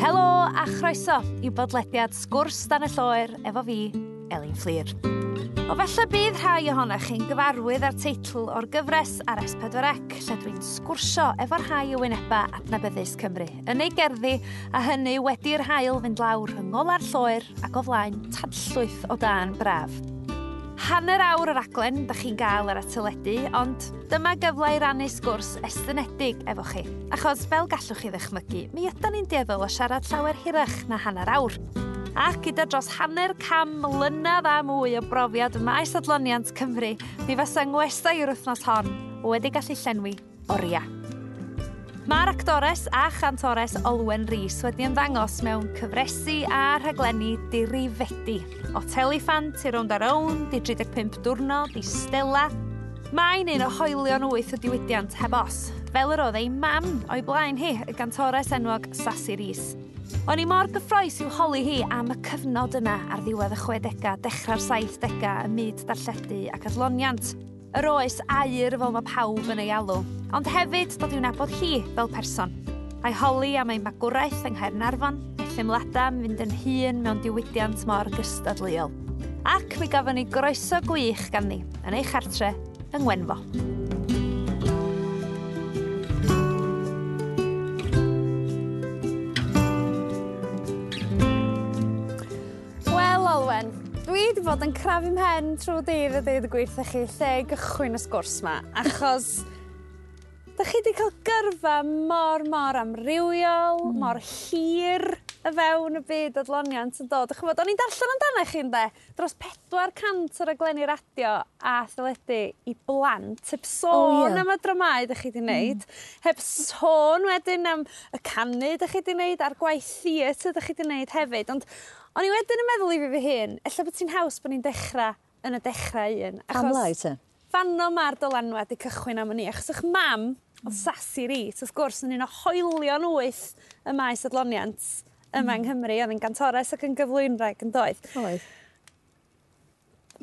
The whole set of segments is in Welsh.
Helo a chroeso i bodlediad Sgwrs Dan y Lloer efo fi, Elin Fflur. O falle bydd rhai ohonoch chi'n gyfarwydd â'r teitl o'r gyfres ar S4C lle dwi'n sgwrsio efo rhai o wyneba adnabyddus Cymru yn ei gerddi a hynny wedi'r haul fynd lawr rhwng ola'r lloer ac o flaen tanllwyth o dân braf. Hanner awr o raglen da chi'n gael ar y teledu, ond dyma gyfle i rannu sgwrs estynedig efo chi. Achos fel gallwch chi ddychmygu, mi ydan ni'n dueddol o siarad llawer hirach na hanner awr. Ac gyda dros 50 mlynedd a mwy o brofiad ym maes adloniant Cymru, mi fasa ngwestai yr wythnos hon wedi gallu llenwi oriau. Mae'r actores a chantores Olwen Rees wedi ymddangos mewn cyfresi a rhaglenni dirifedi. O Tellyffant i Rownd a Rownd, i 35 Diwrnod, i Stella. Mae'n un o hoelion wyth y diwydiant heb os, fel yr oedd ei mam o'i blaen hi, y gantores enwog Sassi Rees. O'n i mor gyffrous i'w holi hi am y cyfnod yna ar ddiwedd y 60au, dechrau'r 70au ym myd darlledu ac adloniant. Yr oes aur fel mae pawb yn ei alw, ond hefyd dod i'w nabod hi fel person. A'i holi am ei magwraeth yng Nghaernarfon, ei theimladau am fynd yn hŷn mewn diwydiant mor gystadleuol. Ac mi gafon ni groeso gwych ganddi yn ei chartre yng Ngwenfo. Wel, Olwen, dwi wedi bod yn crafu mhen trwy dydd a deud y gwir wrthych chi lle i gychwyn y sgwrs 'ma, achos dach chi wedi cael gyrfa mor, mor amrywiol, mor hir y fewn y byd adloniant yn dod. Dach ch'mod, o'n i'n darllen amdano chi ynde, dros 400 o raglenni radio a theledu i blant, heb sôn am y dramâu dach chi 'di wneud, heb sôn wedyn am y canu dach chi 'di wneud a'r gwaith theatr dach chi 'di wneud hefyd, ond o'n i wedyn yn meddwl i fi fy hun, ella bod ti'n haws bod ni'n dechrau yn y dechrau un. Pam lai te? Fanno ma'r dylanwad 'di cychwyn am wn i, achos 'ych mam, o'dd Sassi Rees, wrth gwrs, yn un o hoelion wyth y maes adloniant yma yng Nghymru, oedd yn gantores ac yn gyflwynwraig yn doedd? Oedd.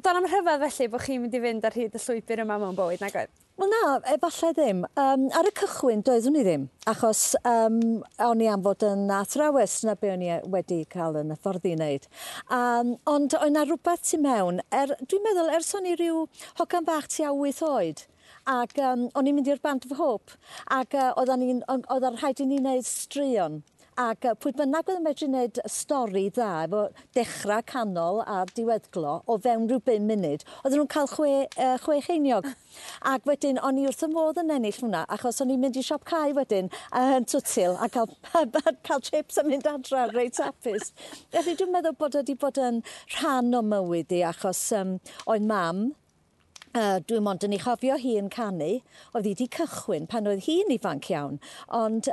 Do'n am rhyfedd felly bod chi'n mynd i fynd ar hyd y llwybr yma mewn bywyd, nag oedd? Wel na, efallai ddim. Ar y cychwyn doeddwn i ddim, achos o'n i am fod yn athrawes, na be o'n i wedi cael yn hyfforddi i wneud. Ond oedd 'na rhywbeth tu mewn, dwi'n meddwl ers o'n i ryw hogan bach tua 8 oed, ac o'n i'n mynd i'r Band of Hope, ac oedd rhaid i ni wneud straeon. Ac pwy bynnag oedd yn medru wneud stori dda efo dechrau, canol a diweddglo o fewn rhyw 5 munud, oedden nhw'n cael 6 cheiniog. Ac wedyn o'n i wrth y modd yn ennill hwnna, achos o'n i'n mynd i siop cae wedyn yn Twtil a cael chips a mynd adra reit hapus. Felly dwi'n meddwl bod wedi bod yn rhan o mywyd i, achos oedd mam, dwi'n mond yn ei chofio hi yn canu, oedd hi wedi cychwyn pan oedd hi'n ifanc iawn, ond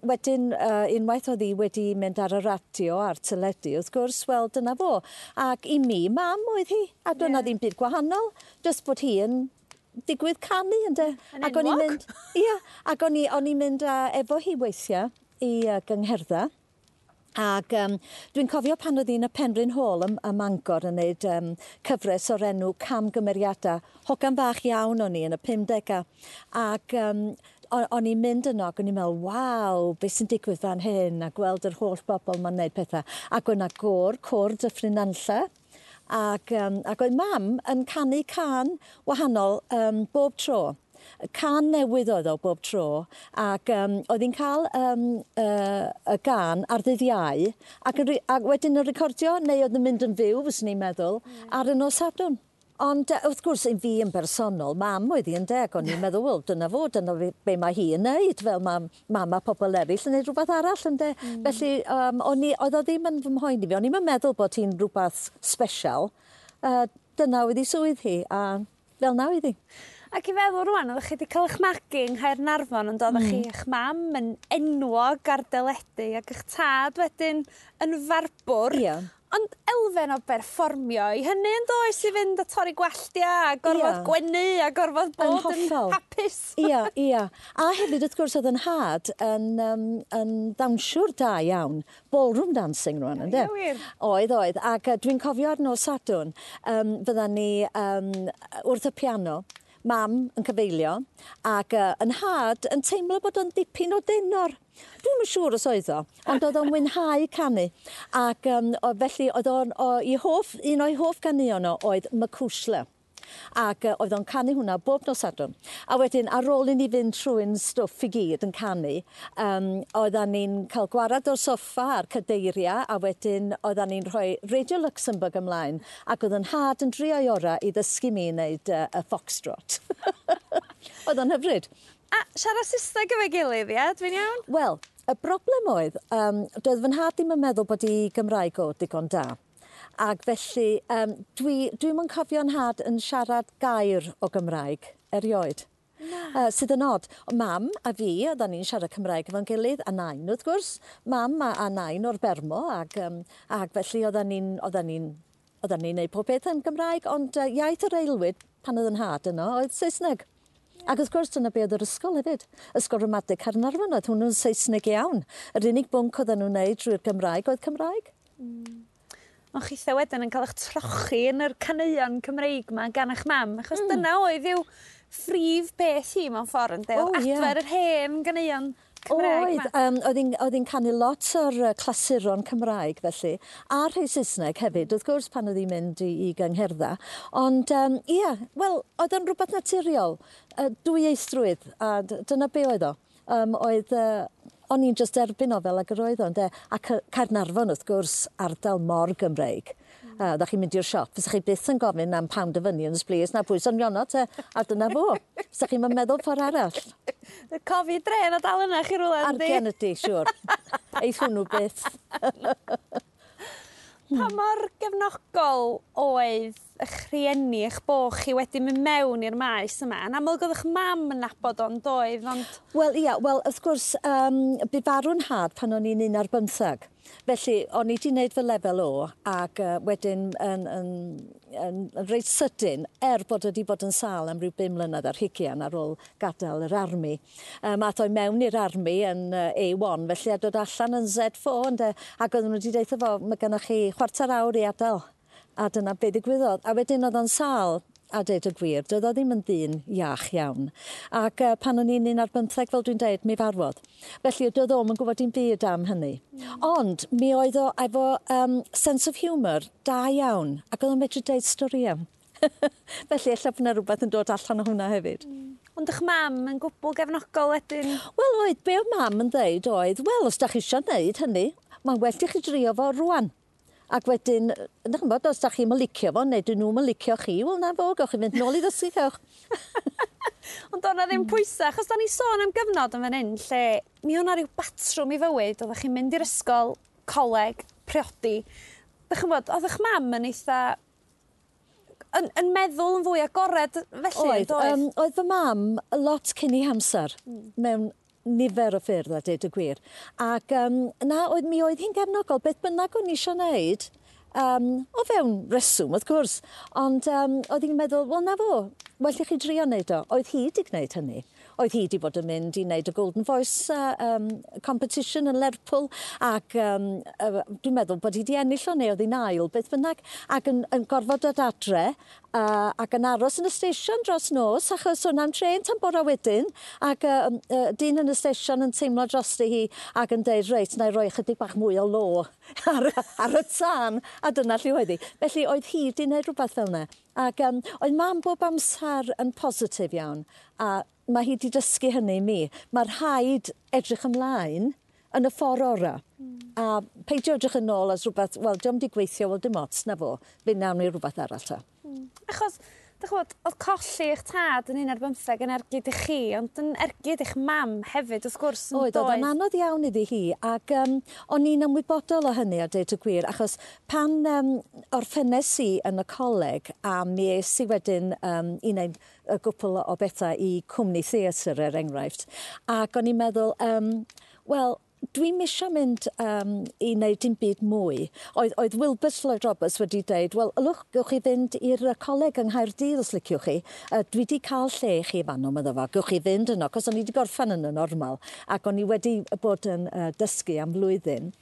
wedyn unwaith oedd hi wedi mynd ar y radio a'r teledu, wrth gwrs, wel dyna fo. Ac i mi, mam oedd hi, a doedd 'na ddim byd gwahanol, jyst bod hi yn digwydd canu, ynde. Yn Ac o'n i'n enwog. mynd, ia, ac o'n i'n mynd efo hi weithiau i gyngherddau. Ac dwi'n cofio pan oedd hi'n y Penrhyn Hall ym Mangor yn neud cyfres o'r enw Camgymeriadau. Hogan bach iawn o'n i yn y 50au. Ac o'n i'n mynd yno ac o'n i'n meddwl, waw, beth sy'n digwydd fan hyn, a gweld yr holl bobl ma'n neud pethau. Ac oedd 'na gôr Dyffryn Nantlle, ac oedd mam yn canu cân wahanol bob tro. Cân newydd oedd o bob tro, ac oedd hi'n cael y gân ar ddydd Iau, ac wedyn yn recordio, neu oedd yn mynd yn fyw, fyswn i'n meddwl, ar y nos Sadwrn. Ond wrth gwrs, i fi yn bersonol, mam oedd hi ynde, ac o'n i'n meddwl, wel, dyna fo, dyna be mae hi yn neud, fel mae mam a pobl eraill yn neud rhywbeth arall ynde. Felly, oedd o ddim yn fy mhoeni fi, o'n i'm yn meddwl bod hi'n rhywbeth special. Dyna oedd hi swydd hi, a fel na oedd hi. Ac i feddwl rŵan, oeddech chi wedi cael eich magu yng Nghaernarfon, ond oeddech chi eich mam yn enwog ar deledu ac eich tad wedyn yn farbwr. Ond elfen o berfformio i hynny yn does, i fynd a torri gwalltia a gorfod gwenu a gorfod Yn bod yn hollol. hapus. Ia, ia. A hefyd, wrth gwrs, oedd yn nhad yn dawnsiwr da iawn. Ballroom dancing rŵan, ynde? Ie, wir. Oedd, oedd. Ac dwi'n cofio ar nos Sadwrn, fyddan ni wrth y piano. Mam yn cyfeilio ac yn nhad yn teimlo bod o'n dipyn o denor. Dwi'm yn siŵr os oedd o, ond oedd o'n mwynhau canu. Ac felly oedd o'n, un o'i hoff ganeuon o oedd Macushla. Ac oedd o'n canu hwnna bob nos Sadwrn. A wedyn, ar ôl i ni fynd trwy'n stwff i gyd yn canu, oeddan ni'n cael gwarad o'r soffa a'r cadeiriau, a wedyn oeddan ni'n rhoi Radio Luxembourg ymlaen, ac oedd yn nhad yn drio'i ora i ddysgu mi wneud y foxtrot. Oedd o'n hyfryd. A siarad Saesneg efo'i gilydd, ie? Dwi'n iawn? Wel, y broblem oedd, doedd fy nhad ddim yn meddwl bod i Gymraeg o digon da. Ac felly, dwi'm yn cofio nhad yn siarad gair o Gymraeg erioed. Sydd yn od. Mam a fi, oeddan ni'n siarad Cymraeg efo'n gilydd, a nain wrth gwrs. Mam a nain o'r Bermo, ac felly oeddan ni'n neud pob peth yn Gymraeg, ond iaith yr aelwyd pan oedd yn nhad yno oedd Saesneg. Ac wrth gwrs dyna be oedd yr ysgol hefyd. Ysgol Ramadeg Caernarfon oedd hwnnw'n Saesneg iawn. Yr unig bwnc oedden nhw'n neud drwy'r Gymraeg oedd Cymraeg. Ond chitha wedyn yn cael eich trochi yn yr caneuon Cymreig 'ma gan eich mam, achos dyna oedd i'w phrif beth hi mewn ffordd, ynde? Oedd adfer yr hen ganeuon Cymraeg 'ma. Oedd, oedd hi'n canu lot o'r clasuron Cymraeg felly, a rhai Saesneg hefyd, wrth gwrs, pan oedd hi'n mynd i gyngherddau. Ond ie, wel, oedd o'n rhywbeth naturiol, dwyieithrwydd, a dyna be oedd o. O'n i'n just erbyn o fel ag yr oedd o, ynde? A Caernarfon, wrth gwrs, ardal mor Gymreig. Oeddech chi'n mynd i'r siop, fysech chi byth yn gofyn am pound of onions, please, na pwys onion te, a dyna fo. Fysech chi'n meddwl ffordd arall. Y cofi dre na dal yna chi rhywle, yndi? Argen ydi, siŵr. Eith hwnnw byth. Pa mor gefnogol oedd eich rhieni, eich bo chi wedi mynd mewn i'r maes yma? Yn amlwg oedd eich mam yn nabod o'n doedd, ond... Wel, ia, wel, wrth gwrs, bu farw'n nhad pan o'n i'n 11. Felly, o'n i wedi gwneud fy lefel O, ac wedyn yn reit sydyn, er bod wedi bod yn sâl am ryw 5 mlynedd ar hugian ar ôl gadael yr army. Ath o'i mewn i'r army yn A1, felly a dod allan yn Z4, ynde, ac oedden nhw wedi deud fo, mae gennych chi chwarter awr i adael. A dyna be ddigwyddodd. A wedyn oedd o'n sâl, a deud y gwir, doedd o ddim yn ddyn iach iawn. Ac pan o'n i'n 11, fel dwi'n deud, mi farwodd. Felly doedd o'm yn gwybod dim byd am hynny. Ond mi oedd o efo sense of humour da iawn, ac oedd o'n medru deud storïau. Felly ella bod yna rhywbeth yn dod allan o hwnna hefyd. Ond eich mam yn gwbl gefnogol wedyn? Wel oedd, be oedd mam yn dweud oedd, wel, os da chi eisiau gwneud hynny, mae'n well i chi drio fo rwan. Ac wedyn, ydych chi'n bod, os da chi'n licio fo, neu dyn nhw'n licio chi, wel na fo, gewch chi fynd nôl i ddysgu, cewch. Ond o'na ddim pwysau, achos da ni sôn am gyfnod yn fan hyn, lle mi o'na rhyw batrwm i fywyd, oeddech chi'n mynd i'r ysgol, coleg, priodi. Dych chi'n bod, oedd eich mam yn eitha... yn meddwl yn fwy agored felly, oedd, oedd? Oedd fy mam lot cyn ei hamser mewn nifer o ffyrdd, a deud y gwir. Ac na, mi oedd hi'n gefnogol, beth bynnag o'n i eisiau wneud, o fewn reswm, wrth gwrs, ond oedd hi'n meddwl, wel na fo, well i chi drio wneud o. Oedd hi wedi gwneud hynny. Oedd hi wedi bod yn mynd i wneud y Golden Voice competition yn Lerpwl, ac dwi'n meddwl bod hi wedi ennill o neu oedd hi'n ail, beth bynnag, ac yn gorfod dod adre, ac yn aros yn y station dros nos, achos o'n am trên tan bora wedyn, ac dyn yn y station yn teimlo drosti hi ac yn deud, reit, na i roi chydig bach mwy o lo ar y tân, a dyna lle oedd hi. Felly oedd hi wedi gwneud rhywbeth fel yna. Ac oedd mam bob amser yn positif iawn, a mae hi wedi dysgu hynny i mi. Mae rhaid edrych ymlaen yn y ffordd orau. A peidio edrych yn ôl as rhywbeth, wel, diolch wedi gweithio, wel, dim ots, na fo. Fe nawn ni rhywbeth arall ta. Achos, dych chi'n gwbod, oedd colli eich tad yn 11 yn ergyd i chi, ond yn ergyd i'ch mam hefyd, wrth gwrs, yn Oedd, oedd o'n doedd? anodd iawn iddi hi, ac o'n i'n ymwybodol o hynny, a deud y gwir, achos pan orffennes i yn y coleg, a mi es i wedyn i wneud y gwpl o bethau i cwmni theatr, er enghraifft, ac o'n i'n meddwl, wel, dwi'm isio mynd i wneud dim byd mwy. Oedd Wilbert Lloyd Roberts wedi deud, wel, ylwch, gewch chi fynd i'r coleg yng Nghaerdydd os liciwch chi. Dwi wedi cael lle i chi fanno, medda fo. Gewch chi fynd yno, cos o'n i wedi gorffen yn y normal, ac o'n i wedi bod yn dysgu am flwyddyn.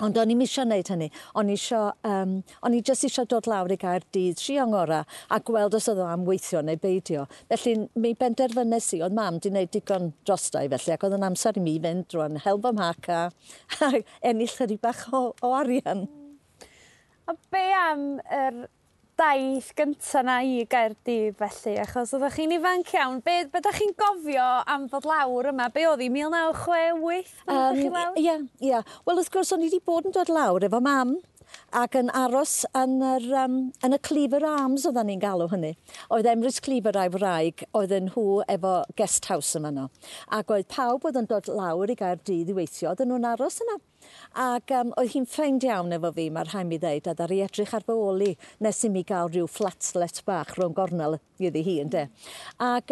Ond o'n i'm isio wneud hynny. O'n i isio, o'n i jyst isio dod lawr i Gaerdydd, trio ngora, a gweld os oedd o am weithio neu beidio. Felly mi benderfynes i, oedd mam 'di wneud digon drosta i felly, ac oedd yn amser i mi fynd rwan, hel fy mhac a ennill chydig bach o arian. A be am yr daith gynta 'na i Gaerdydd felly, achos oeddech chi'n ifanc iawn. Be dach chi'n gofio am ddod lawr yma? Be oedd hi, 1968 pan ddod chi lawr? Ie, ie. Wel, wrth gwrs, o'n i wedi bod yn dod lawr efo mam ac yn aros yn y Cleaver Arms, oedden ni'n galw hynny. Oedd Emrys Cleaver a'i wraig, oedden nhw efo guest house yma no. Ac oedd pawb oedd yn dod lawr i Gaerdydd i weithio, oedden nhw'n aros yna. Ac oedd hi'n ffeind iawn efo fi, mae'r rhaid mi ddeud, a ddaru edrych ar fy ôl i nes i mi gael rhyw flatlet bach rhwng gornel iddi hi, ynde. Ac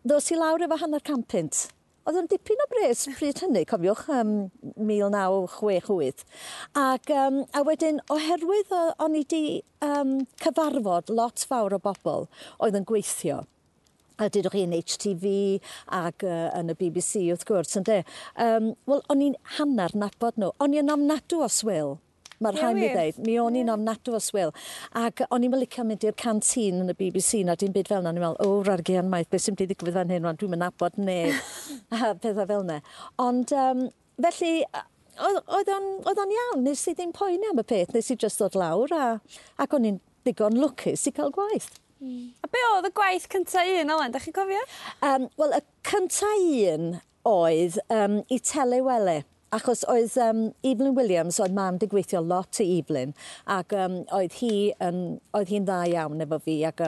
ddos i lawr efo 50 punt. Oedd o'n dipyn o bres pryd hynny, cofiwch, 1968. Ac a wedyn, oherwydd o'n i 'di cyfarfod lot fawr o bobl oedd yn gweithio, a dydwch chi yn HTV ac yn y BBC wrth gwrs, ynde. Wel, o'n i'n hanner nabod nhw. O'n i'n ofnadw o swil. Mae'r rhaid mi ddeud, mi o'n i'n ofnadw o swil. Ac o'n i'n licio mynd i'r canteen yn y BBC na dim byd fel 'na. O'n i'n meddwl, o, rargian maith, beth sy'n mynd i ddigwydd fan hyn, rwan, dwi'n mynd nabod neb. A pethau fel 'na. Ond, felly, oedd o'n iawn, nes i ddim poeni am y peth, nes i jyst ddod lawr ac o'n i'n ddigon lwcus i cael gwaith. A be oedd y gwaith cynta un, Elen, dach chi'n cofio? Wel, y cynta un oedd i Telewele, achos oedd Evelyn Williams, oedd mam 'di gweithio lot i Evelyn, ac oedd hi'n dda iawn efo fi, ac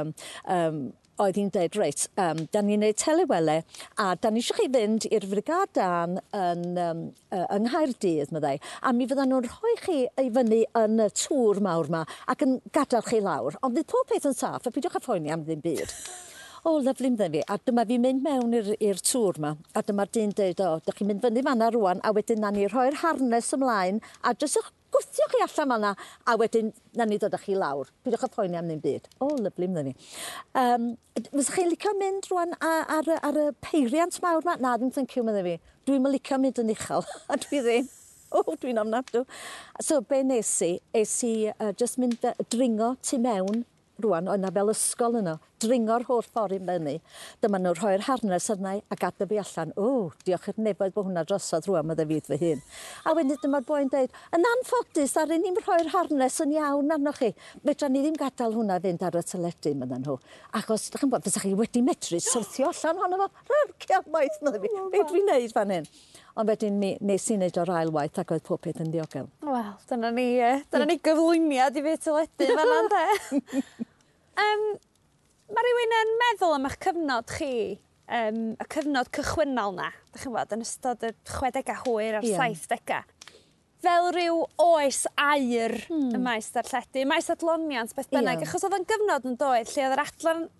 oedd hi'n deud, reit, da ni'n neud Telewele, a da ni eisiau chi fynd i'r Frigâd Dân yng Nghaerdydd, meddai, a mi fyddan nhw'n rhoi chi i fyny yn y tŵr mawr ma ac yn gadael chi lawr, ond fydd pob peth yn saff, a peidiwch â phoeni am ddim byd. O, lyfli, meddai fi, a dyma fi'n mynd mewn i'r tŵr ma, a dyma'r dyn deud, o, dych chi'n mynd fyny fan'na rŵan, a wedyn na ni rhoi'r harness ymlaen, a jyst eich gwthio chi allan fan'na, a wedyn na ni ddod â chi lawr. Peidiwch â phoeni am ddim byd. O, lyfli, meddai fi. Fysech chi'n licio mynd rŵan ar y peiriant mawr ma? Na, ddim thank you, meddai fi. Dwi'm yn licio mynd yn uchel, a dwi ddim. O, dwi'n ofnadw. So, be nes i? Es i jyst mynd dringo tu mewn rŵan, oedd 'na fel ysgol yno, dringo'r holl ffordd i fyny. Dyma nhw'n rhoi'r harness arna i a gadael fi allan. O, diolch i'r nefoedd bod hwnna drosodd rŵan, meddai fi fy hun. A wedyn dyma'r boi'n deud, yn anffodus, ddaru ni'm rhoi'r harness yn iawn arnoch chi. Fedra ni ddim gadael hwnna fynd ar y teledu, medden nhw. Achos, dych chi'n gwbod, fysa chi wedi medru syrthio allan ohono fo. Rarcia maith, meddai fi. Be dwi'n neud fan hyn? Ond wedyn mi nes i wneud o'r ail waith ac oedd pob peth yn ddiogel. Wel, dyna ni gyflwyniad i fyd teledu fan'na, ynde? Mae rhywun yn meddwl am eich cyfnod chi, y cyfnod cychwynnol na, dych chi'n gwbod, yn ystod y 60au hwyr a'r 70au. Fel rhyw oes aur y maes darlledu, maes adloniant beth bynnag, achos oedd o'n gyfnod yn doedd lle oedd yr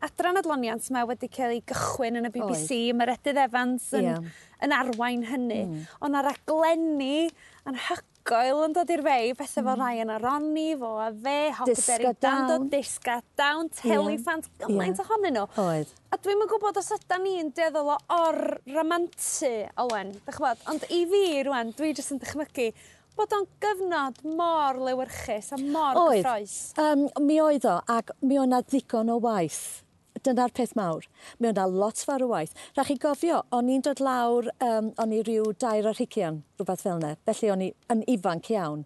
adran adloniant yma wedi cael ei gychwyn yn y BBC, Meredydd Evans yn arwain hynny. Ond 'na raglenni anhygoel yn dod i'r fei, pethau fel Ryan a Ronnie, Fo a Fe, Hockaberry Dando, Disga Down, Tellyfant, gymaint ohonyn nhw. Oedd. A dwi'm yn gwybod os ydan ni'n dueddol o or-ramantu, Olwen, dych chi'n gwbod, ond i fi rŵan, dwi jyst yn dychmygu bod o'n gyfnod mor lewyrchus a mor gyffrous. Mi oedd o, ac mi oedd 'na ddigon o waith. Dyna'r peth mawr. Mi oedd 'na lot fawr o waith. Rhaid chi gofio, o'n i'n dod lawr, o'n i ryw 22, rhywbeth fel 'na. Felly o'n i yn ifanc iawn.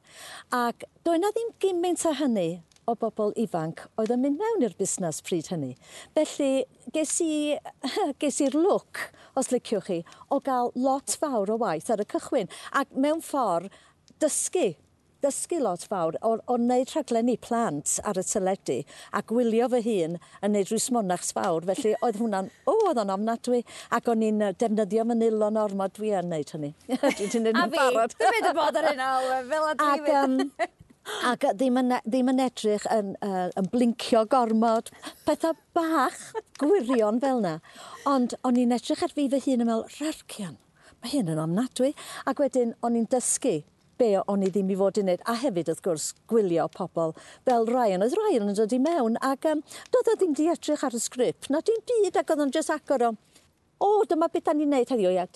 Ac doedd 'na ddim gymaint o hynny o bobl ifanc oedd yn mynd mewn i'r busnes pryd hynny. Felly ges i'r lwc, os liciwch chi, o gael lot fawr o waith ar y cychwyn. Ac mewn ffordd, dysgu lot fawr o wneud rhaglenni plant ar y teledu a gwylio fy hun yn wneud rhyw smonachs fawr, felly oedd hwnna'n, oedd o'n ofnadwy, ac o'n i'n defnyddio manylon ormod, dwi yn wneud hynny. Dwi 'di wneud yn barod. A fi, dwi'n mynd i bod ar hynna, fel a dwi fynd. Ac ddim yn edrych yn blincio gormod, pethau bach gwirion fel 'na. Ond o'n i'n edrych ar fi fy hun yn meddwl, rarcian, mae hyn yn ofnadwy. Ac wedyn o'n i'n dysgu be o'n i ddim i fod i wneud, a hefyd wrth gwrs gwylio pobl fel Ryan. Oedd Ryan yn dod i mewn ac doedd o ddim di edrych ar y sgript, na dim byd, ac oedd o'n jyst agor o, o, dyma beth da ni'n neud heddiw, ia,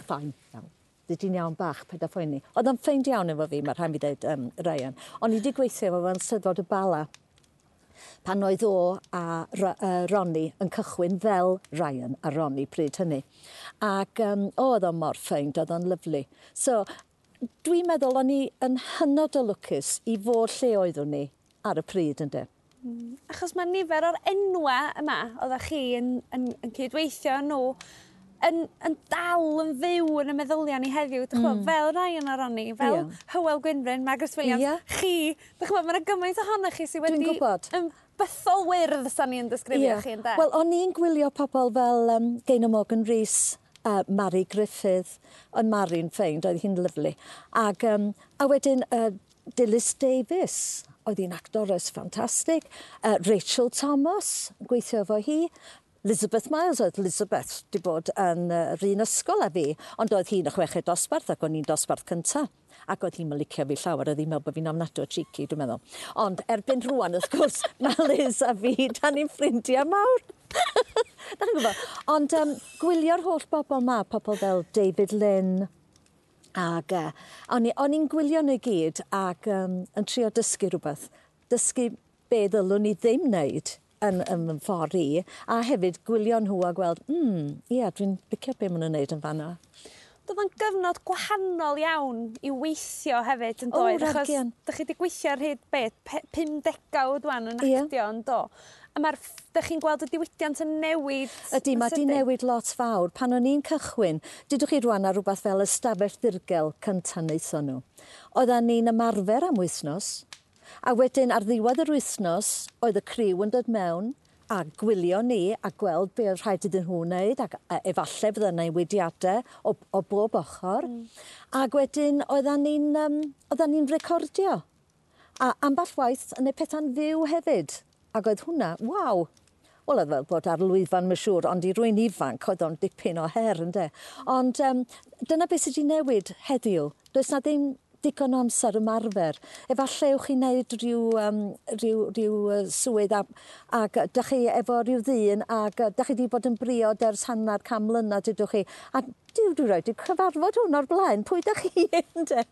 fine, iawn. Fyddi di'n iawn bach, paid â phoeni. Oedd o'n ffeind iawn efo fi, mae rhaid mi ddeud, Ryan. O'n i wedi gweithio efo fo'n Steddfod y Bala pan oedd o a Ronnie yn cychwyn fel Ryan a Ronnie pryd hynny. Ac oedd o'n mor ffeind, oedd o'n lyfli. So, dwi'n meddwl o'n i yn hynod o lwcus i fod lle oeddwn ni ar y pryd, ynde. Achos mae nifer o'r enwa yma oeddech chi yn cydweithio nhw yn dal yn fyw yn y meddyliau ni heddiw, dych ch'mo', fel Ryan a Ronnie, fel Hywel Gwynfryn, Margaret Williams, chi, dych ch'mo', ma' 'na gymaint ohonoch chi sydd wedi Dwi'n gwybod. Yn bythol wyrdd, sa ni'n disgrifio chi, ynde? Wel, o'n i'n gwylio pobl fel Gaynor Morgan Rees, Mari Griffith, oedd Mari'n ffeind, oedd hi'n lyfli. Ac, a wedyn Dilys Davies, oedd hi'n actores ffantastig. Rachel Thomas, gweithio efo hi. Elizabeth Miles, oedd Elizabeth wedi bod yn yr un ysgol â fi, ond oedd hi'n y chweched dosbarth ac o'n i'n dosbarth cynta. Ac oedd hi'n licio fi llawer, oedd hi'n meddwl bod fi'n ofnadwy o cheeky, dwi'n meddwl. Ond erbyn rŵan, wrth gwrs, mae Liz a fi, da ni'n ffrindiau mawr. Da chi'n gwybod? Ond gwylio'r holl bobl ma, pobl fel David Lynn, ac o'n i'n gwylio nhw i gyd ac yn trio dysgu rhywbeth. Dysgu be ddylwn ni ddim wneud yn fy ffordd i, a hefyd gwylio nhw a gweld, ie, dwi'n licio be maen nhw'n wneud yn fan'na. Doedd o'n gyfnod gwahanol iawn i weithio hefyd, yn O, doedd? Achos rhagian. dych chi wedi gweithio ar hyd be, 5 degawd wan yn actio, yn do? A dych chi'n gweld y diwydiant yn newid Ydy, yn mae 'di sydyn? newid lot fawr. Pan o'n i'n cychwyn, dydwch chi rwan ar rhywbeth fel ystafell ddirgel cynta wnaethon nhw. Oeddan ni'n ymarfer am wythnos, a wedyn ar ddiwedd yr wythnos oedd y criw yn dod mewn a gwylio ni a gweld be oedd rhaid iddyn nhw wneud, ac efallai fydda newidiadau o bob ochr. Ac wedyn oeddan ni'n recordio. A ambell waith yn neud pethau'n fyw hefyd. Ac oedd hwnna, waw! Wel, oedd fel bod ar lwyfan, mae'n siŵr, ond i rywun ifanc oedd o'n dipyn o her, ynde. Ond dyna beth sydd wedi newid heddiw. Does na ddim digon o amser ymarfer. Efallai ewch chi wneud rhyw swydd ac dych chi efo rhyw ddyn ac dych chi wedi bod yn briod ers hanner can mlynedd, dydwch chi. A duw, dwi rioed 'di cyfarfod hwn o'r blaen. Pwy dych chi, ynde?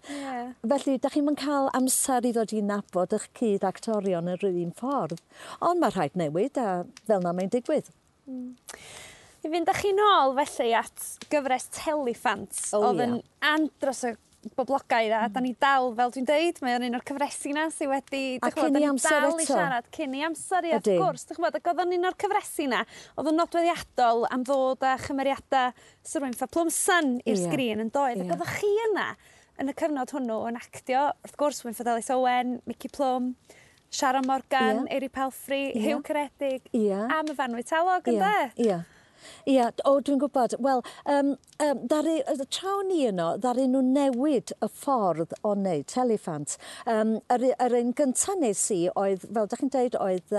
Felly, dych chi'm yn cael amser i ddod i nabod eich cyd-actorion yr un ffordd. Ond mae rhaid newid a fel 'na mae'n digwydd. I fynd â chi nôl felly at gyfres Tellyffant, oedd yn andros o boblogaidd a da ni dal, fel dwi'n deud, mae o'n un o'r cyfresi 'na sydd wedi, A dych ch'mod, cyn da i ni amser dal i eto. siarad cyn i amser, ie, wrth gwrs, dych ch'mod, ac oedd o'n un o'r cyfresi 'na, oedd yn nodweddiadol am ddod â chymeriadau Sir Wynff a Plwmsan i'r sgrin yn doedd, ac oeddech chi yna yn y cyfnod hwnnw yn actio, wrth gwrs, Wynford Ellis Owen, Mici Plwm, Sharon Morgan, Eiry Palfrey, Huw Ceredig, a Myfanwy Talog, ynde? Ie. Ie, o, dwi'n gwybod. Wel, ddaru, tra o'n i yno, ddaru nhw newid y ffordd o wneud Tellyffant. Yr un gyntaf nes i oedd, fel dych chi'n deud, oedd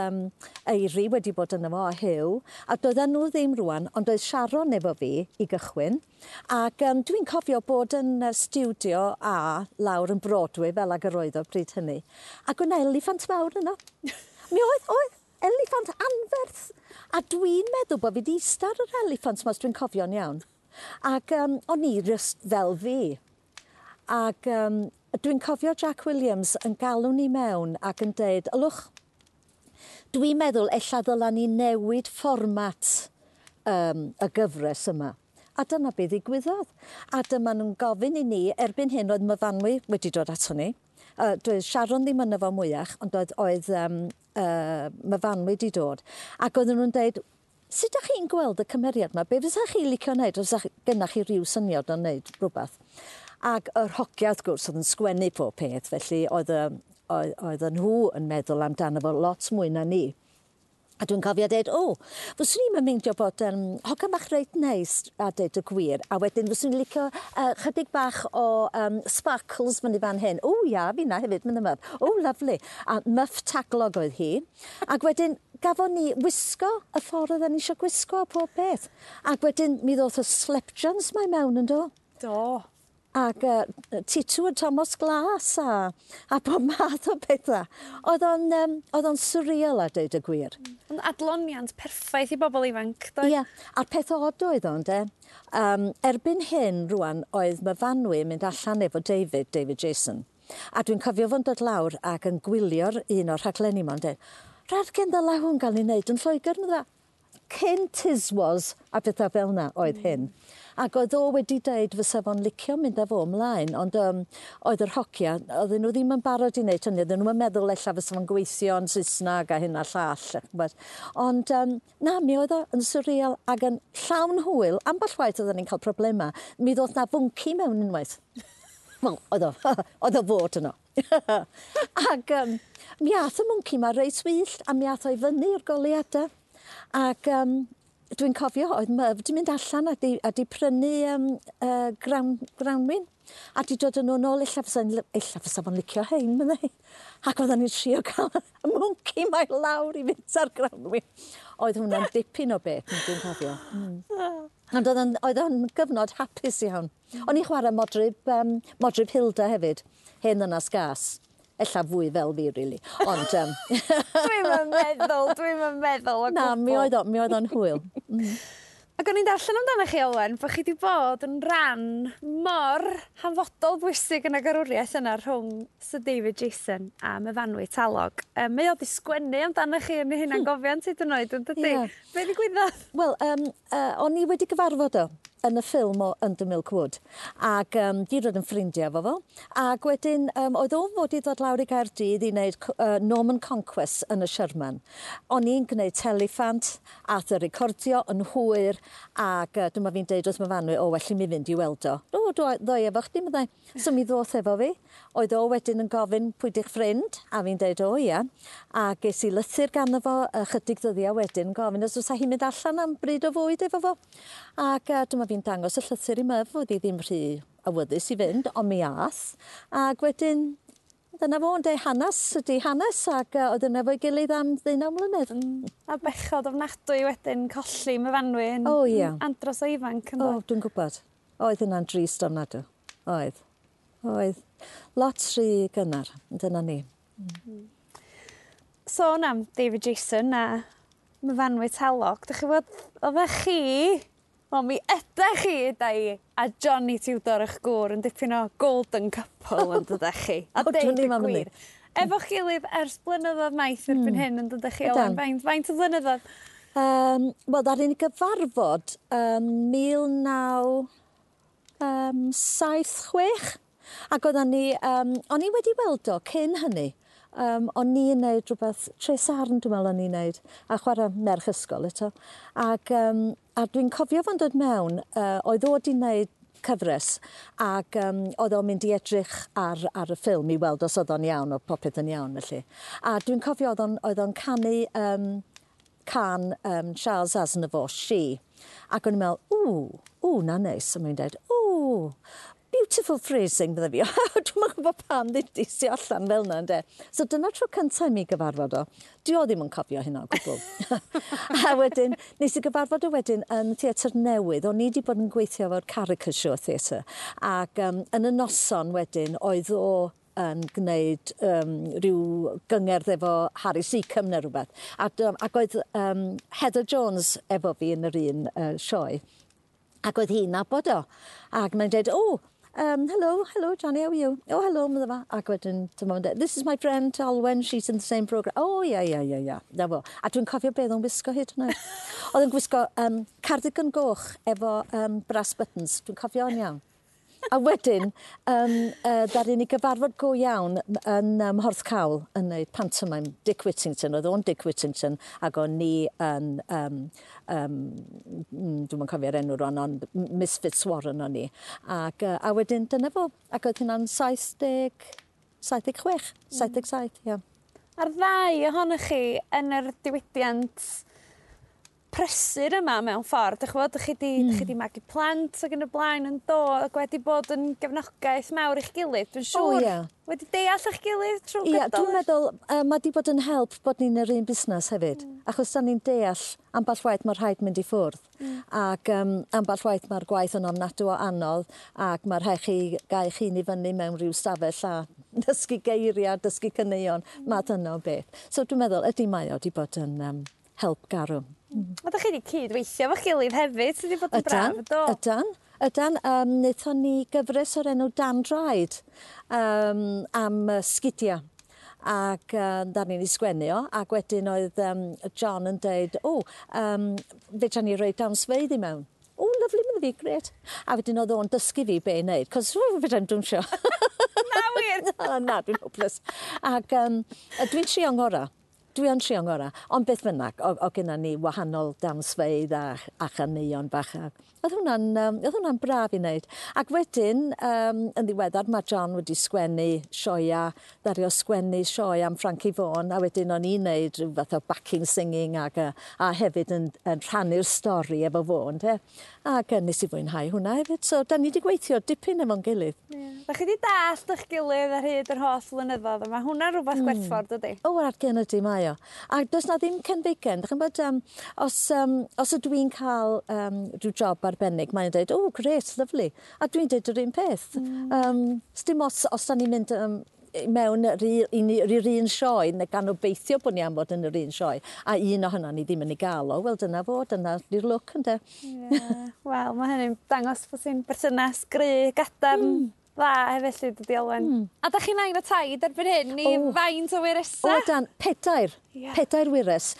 Eiry wedi bod yno fo a Huw, a doedden nhw ddim rwan, ond oedd Sharon efo fi i gychwyn. Ac dwi'n cofio bod yn stiwdio A lawr yn Broadway, fel ag yr oedd o bryd hynny. Ac o'na eliffant mawr yno. Mi oedd eliffant anferth. A dwi'n meddwl bod fi wedi ista ar yr eliffant 'ma, os dwi'n cofio'n iawn. Ac o'n i just fel fi. Ac dwi'n cofio Jack Williams yn galw ni mewn ac yn deud, ylwch, dwi'n meddwl ella ddyla ni newid fformat y gyfres yma. A dyna be ddigwyddodd. A dyma nhw'n gofyn i ni, erbyn hyn oedd Myfanwy wedi dod ato ni. Doedd Sharon ddim yno fo mwyach, ond oedd Myfanwy wedi dod. Ac oedden nhw'n deud, sut ydych chi'n gweld y cymeriad yma? Be fysa chi licio wneud? Os gennych chi ryw syniad o wneud rhywbeth? Ac yr hogia, wrth gwrs, oedd yn sgwennu pob peth, felly oedd nhw yn meddwl amdano fo lot mwy na ni. A dwi'n cofio dweud, o, fyswn i'n meindio bod hogan bach reit neis a deud y gwir, a wedyn fyswn i'n licio chydig bach o sparkles fyny fan hyn. O, ia, fi na hefyd, mynd yma. O, lovely. A muff taglog oedd hi. Ac wedyn gafon ni wisgo y ffordd oedden ni eisiau gwisgo a pob peth. Ac wedyn mi ddoth y slepjans mae mewn yn do. Do. Ac Titw a Thomas Glas a bob math o bethau. Oedd o'n surreal a deud y gwir. Ond adloniant perffaith i bobl ifanc, doedd? Ie, a'r peth od oedd o'n de. Erbyn hyn rwan oedd Myfanwy yn mynd allan efo David, David Jason. A dwi'n cofio fo'n dod lawr ac yn gwylio'r un o'r rhaglenni ma'n dweud, rhaid ddylai hwn gael ei wneud yn Lloegr, medda. Cyn Tiswas a pethau fel yna oedd hyn. Ac oedd o wedi deud fysa fo'n licio mynd â fo ymlaen, ond oedd yr hogia, oedden nhw ddim yn barod i wneud hynny, oedden nhw'n meddwl ella fysa fo'n gweithio yn Saesneg a hyn a llall. Ond na, mi oedd o yn surreal ac yn llawn hwyl. Ambell waith oedden ni'n cael problemau. Mi ddoth na fwnci mewn unwaith. Wel, oedd o fod yno. Ac mi ath y mwnci ma reit wyllt a mi ath o i fyny i'r goleuadau. Ac dwi'n cofio oedd Myf di mynd allan a di prynu grawnwin a di dod yn nhw nôl, ella fysa fo'n licio hein, meddai. Ac oedden ni'n trio cael y mwnci mae lawr i fynd ar grawnwin. Oedd hwnna'n dipyn o beth, dwi'n cofio. Ond oedd o'n gyfnod hapus iawn. O'n i'n chwarae Modryb Hilda hefyd, hen ddynas gas. Ella fwy fel fi, really. Ond Dwi'm yn meddwl o gwbl. Na, mi oedd o'n hwyl. Ac o'n i'n darllen amdano chi, Olwen, bod chi wedi bod yn ran mor hanfodol bwysig yn y garwriaeth yna rhwng Sir David Jason a Myfanwy Talog. Mae o 'di sgwennu amdano chi yn ei hunangofiant hyd yn oed, yn dydi? Yeah. Be ddigwyddodd? Wel, o'n i wedi gyfarfod o yn y ffilm o Under Milk Wood ac di dod yn ffrindiau efo fo ac wedyn oedd o'n fod i ddod lawr i Gaerdydd i wneud Norman Conquest yn y Sherman. O'n i'n gwneud Telefant, ath y recordio yn hwyr ac dyma fi'n deud wrth Myfanwy, o, well i mi fynd i weld o. O, ddoi efo chdi, meddai. So mi ddoth efo fi. Oedd o wedyn yn gofyn pwy di'ch ffrind, a fi'n deud o ia. A ges i lythyr ganddo fo ychydig ddyddiau wedyn gofyn os fysa hi'n mynd allan am bryd o fwyd efo fo. Ac dyma fi'n dangos y llythyr i Myf, oedd hi ddim rhy awyddus i fynd, ond mi ath. Ac wedyn, dyna fo, ynde, hanes ydi hanes, ac oedd yna efo'i gilydd am 19 mlynedd. A bechod ofnadwy wedyn colli Myfanwy yn andros o ifanc. O, dwi'n gwybod. Oedd hynna'n drist ofnadwy. Oedd. Oedd. Lot rhy gynnar, dyna ni. Sôn am David Jason a Myfanwy Talog, dych chi bod, oeddech chi, wel, mi ydych chi, da i, a Johnny Tudor eich gŵr yn dipyn o golden couple yn dydych chi. A deud y gwir. Efo'ch gilydd ers blynyddoedd maith erbyn hyn yn dydych chi, Olwen, faint o flynyddoedd? Wel, ddaru ni gyfarfod 1976 ac oeddan ni, o'n i wedi weld o cyn hynny. O'n i'n neud rhywbeth, Tresarn dwi'n meddwl o'n i'n neud, a chwarae merch ysgol eto. Ac a dwi'n cofio fo'n dod mewn, oedd o wedi neud cyfres ac oedd o'n mynd i edrych ar y ffilm i weld os oedd o'n iawn, o popeth yn iawn felly. A dwi'n cofio oedd o'n canu can Charles Aznavour, She. Ac o'n i'n meddwl, ww, na neis. A mae'n dweud, ww, beautiful phrasing, bydde fi. Dwi'm yn gwybod pam ddudis i allan fel yna, ynde. So dyna tro cyntaf i mi gyfarfod o. Dwi o ddim yn cofio hynna o gwbl. A wedyn, nes i gyfarfod o wedyn yn theatr newydd. O'n i wedi bod yn gweithio efo'r Caricature Theatre. Ac yn y noson wedyn, oedd o yn gwneud rhyw gyngerdd efo Harry Seacombe neu rhywbeth. Ac oedd Heather Jones efo fi yn yr un sioe. Ac oedd hi'n nabod o. Ac mae'n dweud, oh, hello, hello, Johnny, how are you? Oh, hello, medda fo. Ac wedyn, dyma fo'n dweud, this is my friend Olwen, she's in the same programme. Oh, yeah, yeah, yeah, yeah. Na fo. A dwi'n cofio beth o'n gwisgo hyd yn oed. Oedd o'n gwisgo cardigan goch efo brass buttons. Dwi'n cofio o'n iawn. A wedyn, ddaru ni gyfarfod go iawn yn Mhorthcawl yn neud pantomime Dick Whittington. Oedd o'n Dick Whittington ac o'n ni yn, dwi'm yn cofio'r enw rwan, ond Miss Fitzwarren o'n i. Ac, a wedyn dyna fo. Ac oedd hynna'n 70, 76, 77, ie. A'r ddau ohonoch chi yn yr diwydiant prysur yma mewn ffordd, dych chi'n gwybod, chi di magu plant ac yn y blaen yn do, ac wedi bod yn gefnogaeth mawr i'ch gilydd, dwi'n siŵr. Wedi deall eich gilydd trwy gydol. Ie, dwi'n meddwl, mae di bod yn help bod ni'n yr un busnes hefyd, achos da ni'n deall ambell waith mae rhaid mynd i ffwrdd. Ac ambell waith mae'r gwaith yn ofnadw o anodd ac mae rhaid chi gael chi'n i fyny mewn rhyw stafell a dysgu geiriau, dysgu caneuon, math yna o beth. So dwi'n meddwl, ydy mae o wedi bod yn help garw. A dach chi wedi cydweithio efo'ch gilydd hefyd, sydd wedi bod yn braf, do? Ydan, ydan. Wnaethon ni gyfres o'r enw Dan Draed am sgidiau. Ac da ni'n ei sgwennu o, ac wedyn oedd John yn deud, o, fedra ni roi dawnsfeydd i mewn. O, lyfli, mynd fi, grêt. A wedyn oedd o'n dysgu fi be i wneud, cos fedra i'm dawnsio. Na wir? Na, dwi'n hopeless. Ac dwi'n trio ngorau. Dwi yn trio ngorau, ond beth bynnag, o gynna ni wahanol dawnsfeydd a chaneuon bach. Oedd hwnna'n braf i wneud. Ac wedyn, yn ddiweddar, mae John wedi sgwennu sioea, ddaru o sgwennu sioe am Frankie Vaughan, a wedyn o'n i'n wneud rhyw fath o backing singing ac, a hefyd yn rhannu'r stori efo fo, ynde? Ac nes i fwynhau hwnna hefyd. So, da ni wedi gweithio dipyn efo'n gilydd. Yeah. Da chi wedi dallt eich gilydd ar hyd yr holl flynyddoedd, a mae hwnna'n rhywbeth gwerthfawr, dydy? O, ar gen ydy mae o. A does na ddim cenfigen. Dach chi'n bod, os ydw i'n cael rhyw job arbennig, mae'n dweud, oh, great, lovely. A dwi'n dweud yr un peth. Dim os da ni'n mynd mewn yr un sioe, neu gan obeithio bod ni am fod yn yr un sioe, a un ohono ni ddim yn ei gael o, wel dyna fo, dyna di'r lwc, ynde. Yeah. Wel, mae hynny'n dangos bod ti'n berthynas gry, gadarn, dda hefyd, felly, dydy Olwen. A da chi'n nain a taid erbyn hyn, i faint o wyresau? O, dan, pedair. Yeah. Pedair wyres.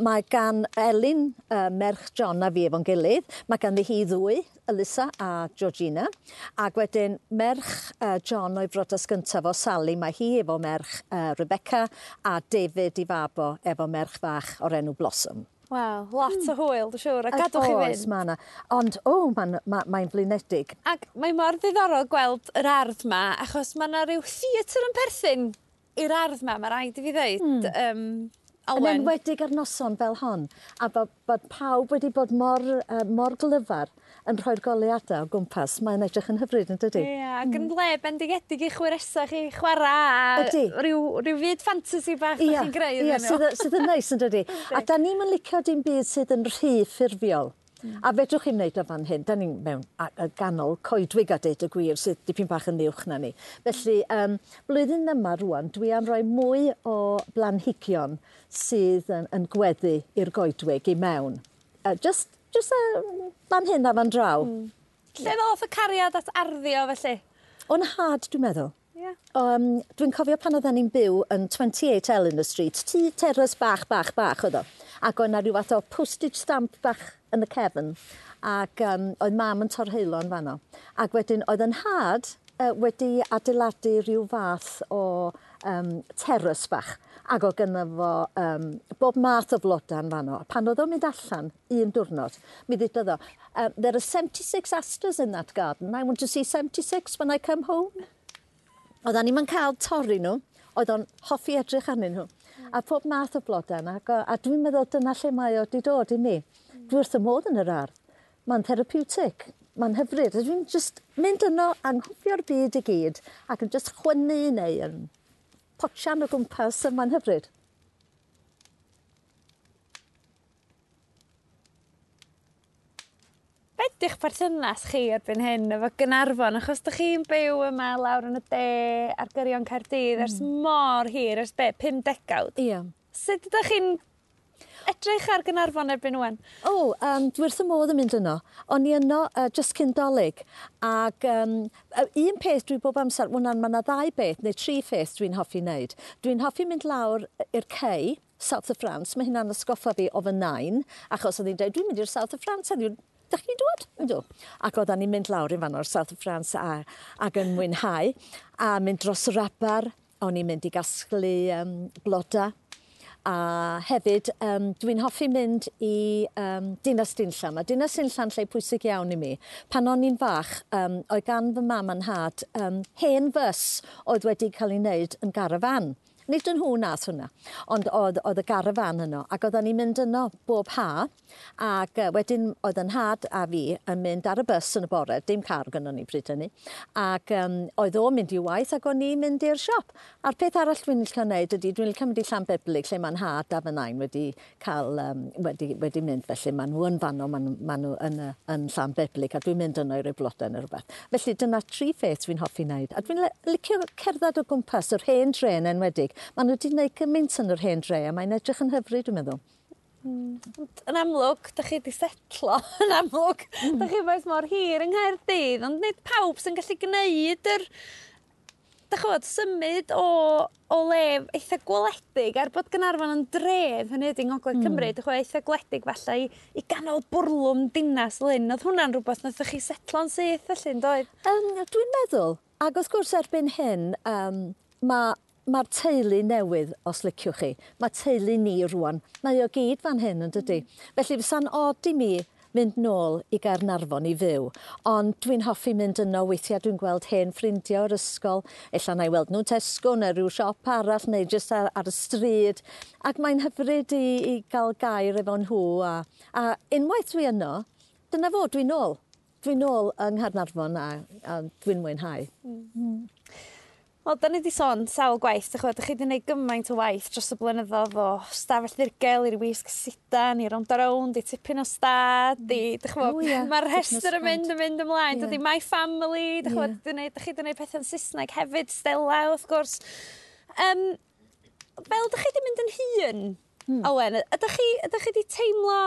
Mae gan Elin, merch John a fi efo'n gilydd. Mae ganddi hi ddwy, Elisa a Georgina. Ac wedyn merch John o'i brodas gyntaf o Sally, mae hi efo merch Rebecca a David i fab o efo merch fach o'r enw Blossom. Wel, lot o hwyl, dwi'n siŵr, a gadwch chi fynd. Oes, mae yna. Ond, o, mae'n flinedig. Ac mae mor ddiddorol gweld yr ardd ma, achos mae yna rhyw theatr yn perthyn i'r ardd ma, mae rhaid i fi ddeud. Yn Olwen. enwedig ar noson fel hon, a bod pawb wedi bod mor glyfar yn rhoi'r goleuadau o gwmpas, mae'n edrych yn hyfryd, yn dydi? Ie, ac yn le bendigedig i'ch wyresau chi chwarae a Ydi. rhyw fyd ffantasi bach da chi'n greu Ie, iddyn nhw. sydd yn neis, yn dydi? A da ni'm yn licio dim byd sydd yn rhy ffurfiol. A fedrwch chi'm wneud o fan hyn, da ni'n mewn ganol coedwig a deud y gwir sydd dipyn bach yn uwch na ni. Felly, blwyddyn yma rŵan, dwi am roi mwy o blanhigion sydd yn gweddu i'r goedwig i mewn. Just fan hyn a fan draw. Lle ddoth y cariad at arddio felly? O'n nhad, dwi'n meddwl. Ie. Dwi'n cofio pan oedden ni'n byw yn 28 Eleanor Street, tŷ terrace bach, bach, bach oedd o. Ac oedd 'na rhyw fath o postage stamp bach yn y cefn. Ac oedd mam yn torheulo yn fanno. Ac wedyn oedd yn nhad wedi adeiladu rhyw fath o terrace bach. Ac oedd gynno fo bob math o flodau yn fanno. A pan oedd o'n mynd allan un diwrnod, mi ddeudodd o, there are 76 asters in that garden. I want to see 76 when I come home. Oedden ni'm yn cael torri nhw, oedd o'n hoffi edrych arnyn nhw. A pob math o blodau yna, a dwi'n meddwl dyna lle mae o wedi dod i mi. Dwi wrth y modd yn yr ardd. Mae'n therapeutic, mae'n hyfryd. A dwi'n just mynd yno, anghofio'r byd i gyd, ac yn just chwynnu neu yn potsian o gwmpas, a mae'n hyfryd. Be ydi'ch perthynas chi erbyn hyn efo Gaernarfon? Achos dych chi'n byw yma lawr yn y de ar gyrion Caerdydd ers mor hir, ers be, 5 degawd? Ie. Sut ydych chi'n edrych ar Gaernarfon erbyn ŵan? O, dwi wrth y modd yn mynd yno. O'n i yno just cyn Dolig. Ac un peth dwi bob amser, wel, ma' 'na ddau beth, neu tri pheth dwi'n hoffi wneud. Dwi'n hoffi mynd lawr i'r Cei, South of France. Mae hynna'n atgoffa fi o fy nain, achos oedd hi'n dweud, dwi'n mynd i'r South of France heddiw. Dach chi'n dod? Yndw. Ac oeddan ni'n mynd lawr i fan o'r South of France ac yn mwynhau, a mynd dros yr aber, o'n i'n mynd i gasglu bloda. A hefyd, dwi'n hoffi mynd i Dinas Dinllan. Mae Dinas Dinllan lle pwysig iawn i mi. Pan o'n i'n fach, oedd gan fy mam a'n nhad hen fws oedd wedi cael ei wneud yn garafan. Nid yn nhw nath hwnna, ond oedd y garafan yno, ac oedden ni'n mynd yno bob ha, ac wedyn oedd yn nhad a fi yn mynd ar y bus yn y bore, dim car gynnon ni pryd hynny, ac oedd o'n mynd i waith ac o'n i'n mynd i'r siop. A'r peth arall dwi'n licio wneud ydy, dwi'n licio mynd i Llanbeblig, lle mae'n nhad a fy nain wedi cael, wedi mynd, felly maen nhw yn fanno, maen nhw yn Llanbeblig, a dwi'n mynd yno i roi blodau neu rhywbeth. Felly dyna tri pheth dwi'n hoffi wneud, a dwi'n licio cerdded o gwmpas yr hen dre yn enwedig. Maen nhw wedi gwneud gymaint yn yr hen dre a mae'n edrych yn hyfryd, dwi'n meddwl. Yn amlwg, dych chi wedi setlo, yn amlwg, dych chi wedi mor hir yng Nghaerdydd, ond nid pawb sy'n gallu gwneud yr, dych chi'n symud o le eitha gwledig, er bod Gaernarfon yn dref, hynny ydy yng Ngogledd Cymru, dych chi'n eitha gwledig falle i ganol bwrlwm dinas Lyn. Oedd hwnna'n rhywbeth naethoch chi setlo'n syth felly, yn doedd? Dwi'n meddwl, ac wrth gwrs erbyn hyn, mae'r teulu newydd, os liciwch chi, mae teulu ni rwan, mae o gyd fan hyn yn dydy. Felly fysa'n od i mi mynd nôl i Gaernarfon i fyw, ond dwi'n hoffi mynd yno weithiau, dwi'n gweld hen ffrindiau o'r ysgol, ella na i weld nhw Tesco neu rhyw siop arall neu jyst ar y stryd, ac mae'n hyfryd i gael gair efo nhw, a unwaith dwi yno, dyna fo, dwi'n nôl. Dwi'n nôl yng Nghaernarfon a dwi'n mwynhau. Wel, da ni wedi sôn sawl gwaith, dych chi wedi gwneud gymaint o waith dros y blynyddoedd o Stafell Ddirgel i'r Wisg Sidan, i Rownd a Rownd, i Tipyn o Stad, i, dych chi'n mae'r rhestr yn mynd ymlaen, dydy My Family, dych chi'n dych chi wedi gwneud pethau'n Saesneg hefyd, Stella, wrth gwrs. Fel dych chi wedi mynd yn hŷn, Olwen, ydych chi wedi teimlo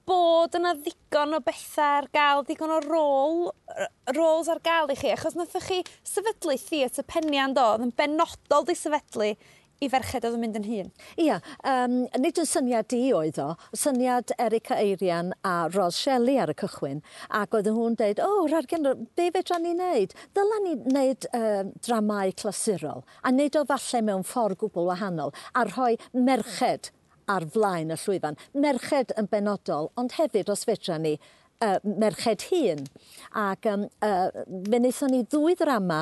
bod yna ddigon o bethau ar gael, digon o roles ar gael i chi, achos naethoch chi sefydlu Theatr Penian do, oedd yn benodol di sefydlu i ferched oedd yn mynd yn hŷn. Ia, nid yn syniad i oedd o, syniad Erica Eirian a Ros Shelley ar y cychwyn, ac oedden nhw'n deud, o, Rargen, be fedra ni wneud? Dyla ni wneud dramau clasurol, a wneud o falle mewn ffordd gwbl wahanol, a rhoi merched ar flaen y llwyfan. Merched yn benodol, ond hefyd, os fedra ni, merched hŷn. Ac fe wnaethon ni ddwy ddrama,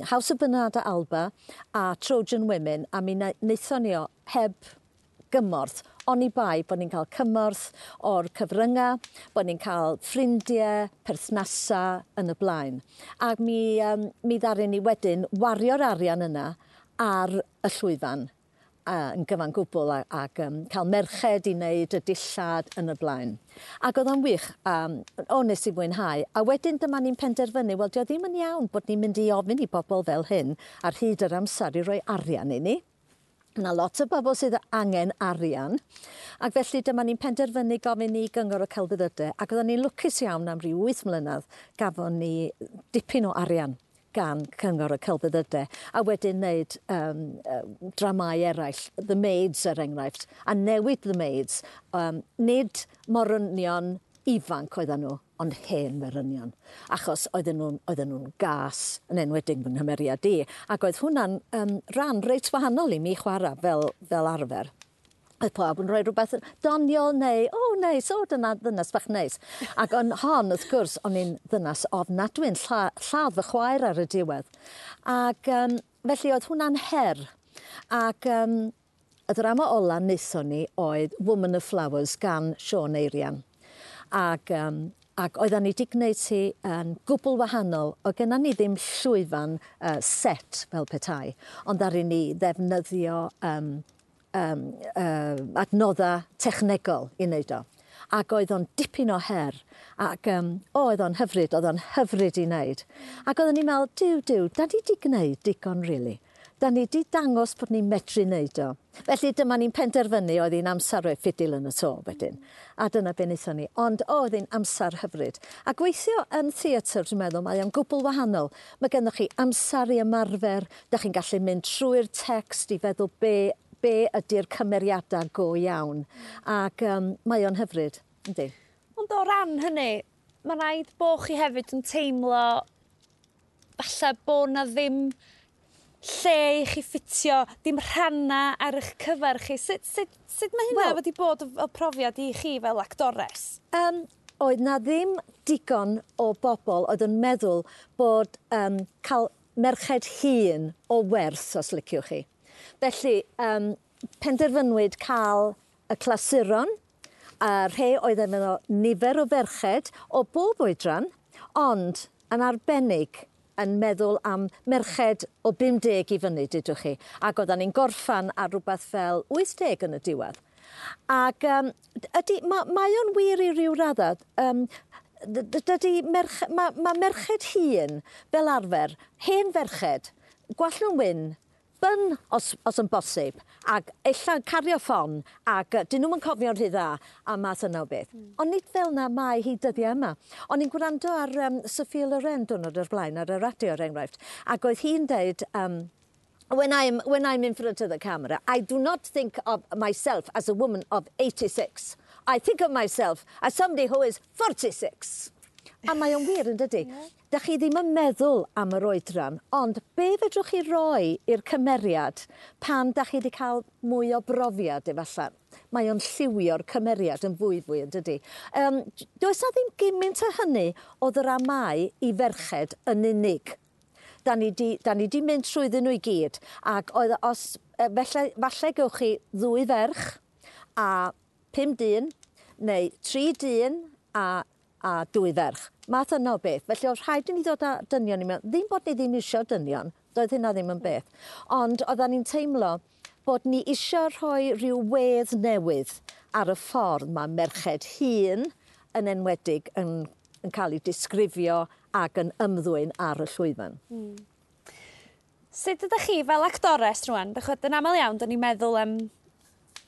House of Bernarda Alba a Trojan Women, a mi wnaethon ni o heb gymorth, oni bai bod ni'n cael cymorth o'r cyfryngau, bod ni'n cael ffrindiau, perthnasau yn y blaen. Ac mi ddaru ni wedyn wario'r arian yna ar y llwyfan yn gyfan gwbl ac cael merched i wneud y dillad yn y blaen. Ac oedd o'n wych, o nes i fwynhau. A wedyn dyma ni'n penderfynu, wel, dio ddim yn iawn bod ni'n mynd i ofyn i bobl fel hyn ar hyd yr amser i roi arian i ni. Yna lot o bobl sydd angen arian, ac felly dyma ni'n penderfynu gofyn i Gyngor y Celfyddydau, ac oedden ni'n lwcus iawn am ryw 8 mlynedd gafon ni dipyn o arian gan Cyngor y Celfyddydau, a wedyn wneud dramau eraill, The Maids er enghraifft, a newid The Maids, nid morynion ifanc oedden nhw, ond hen morynion, achos oedden nhw'n gas, yn enwedig fy nghymeriad i, ac oedd hwnna'n rhan reit wahanol i mi chwarae fel arfer. Oedd pawb yn rhoi rhywbeth doniol neu, o, neis, o, dyna ddynas bach neis. Ac yn hon, wrth gwrs, o'n i'n ddynas ofnadwy'n lladd fy chwaer ar y diwedd. Ac felly oedd hwnna'n her. Ac y ddrama ola wnaethon ni oedd Woman of Flowers gan Siôn Eirian. Ac oedden ni wedi gwneud hi yn gwbl wahanol. Oedd genna ni ddim llwyfan set fel petai, ond ddaru ni ddefnyddio adnoddau technegol i wneud o. Ac oedd o'n dipyn o her, ac oedd o'n hyfryd i wneud. Ac oedden ni'n meddwl, duw, da ni wedi gwneud digon, really. Da ni wedi dangos bod ni'n medru wneud o. Felly dyma ni'n penderfynu oedd hi'n amser rhoi ffidil yn y to wedyn. A dyna be wnaethon ni. Ond oedd hi'n amser hyfryd. A gweithio yn theatr, dwi'n meddwl, mae o'n gwbl wahanol. Mae gennych chi amser i ymarfer, da chi'n gallu mynd trwy'r text i feddwl be ydy'r cymeriadau go iawn. Ac mae o'n hyfryd, yndi. Ond o ran hynny, mae rhaid bo' chi hefyd yn teimlo falle bo' na ddim lle i chi ffitio, dim rhanna ar eich cyfer chi. Sut mae hynna wedi bod fel profiad i chi fel actores? Oedd na ddim digon o bobl oedd yn meddwl bod cael merched hŷn o werth, os liciwch chi. Felly, penderfynwyd cael y clasuron, a rhai oedd efo nifer o ferched o bob oedran, ond yn arbennig yn meddwl am merched o 50 i fyny, dydwch chi. Ac oeddan ni'n gorffan ar rhywbeth fel 80 yn y diwedd. Ac ydy, mae o'n wir i ryw raddau. Dydy mae merched hŷn fel arfer, hen ferched, gwallt nhw'n wyn, bun os yn bosib, ac ella cario ffon, ac dyn nhw'm yn cofio'n rhy dda, a math yna o beth. Ond nid fel na mae hi dyddiau yma. O'n i'n gwrando ar Sophia Loren diwrnod o'r blaen ar y radio, er enghraifft, ac oedd hi'n deud, When I'm in front of the camera, I do not think of myself as a woman of 86. I think of myself as somebody who is 46. A mae o'n wir yn dydy? Yeah. Da chi ddim yn meddwl am yr oedran, ond be fedrwch chi roi i'r cymeriad pan da chi wedi cael mwy o brofiad efallai? Mae o'n lliwio'r cymeriad yn fwy fwy yn dydy. Does na ddim gymaint o hynny o ddramau i ferched yn unig. Da ni di mynd trwyddyn nhw i gyd. Ac oedd os, falle gewch chi ddwy ferch a pum dyn, neu tri dyn a dwy ferch. Math yna o beth. Felly oedd rhaid i ni ddod â dynion i mewn. Ddim bod ni ddim eisiau dynion, doedd hynna ddim yn beth. Ond oedden ni'n teimlo bod ni eisiau rhoi rhyw wedd newydd ar y ffordd mae merched hŷn yn enwedig yn cael ei disgrifio ac yn ymddwyn ar y llwyfan. Sut ydych chi fel actores rwan? Dych chi'n aml iawn, dyn ni'n meddwl am...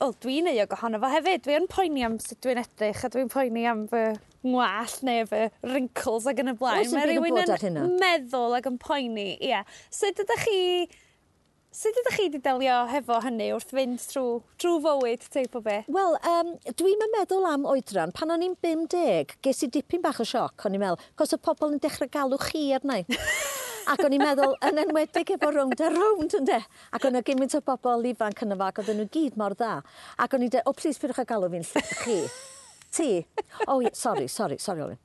O, dwi'n euog ohono fo hefyd. Dwi'n poeni am sut dwi'n edrych a dwi'n poeni am fy ngwallt neu fy wrinkles ac yn y blaen. Oes dim Mae byd yn rhywun bod ar hynna. Meddwl ac yn poeni. Ie. Sut ydych chi wedi delio hefo hynny wrth fynd trwy fywyd teip o beth? Wel, dwi'n meddwl am oedran. Pan o'n i'n 50, ges i dipyn bach o sioc, o'n i'n meddwl, cos y pobl yn dechrau galw chi arna i. Ac o'n i'n meddwl, yn enwedig efo Rownd a Rownd, ynde? Ac o'n gymaint o bobl ifanc yna fo, ac oedden nhw gyd mor dda. Ac o'n i'n dweud, "O, plis pidwch â galw fi'n chi. Ti. Oh, yeah, sorry, sorry, sorry, Olwen.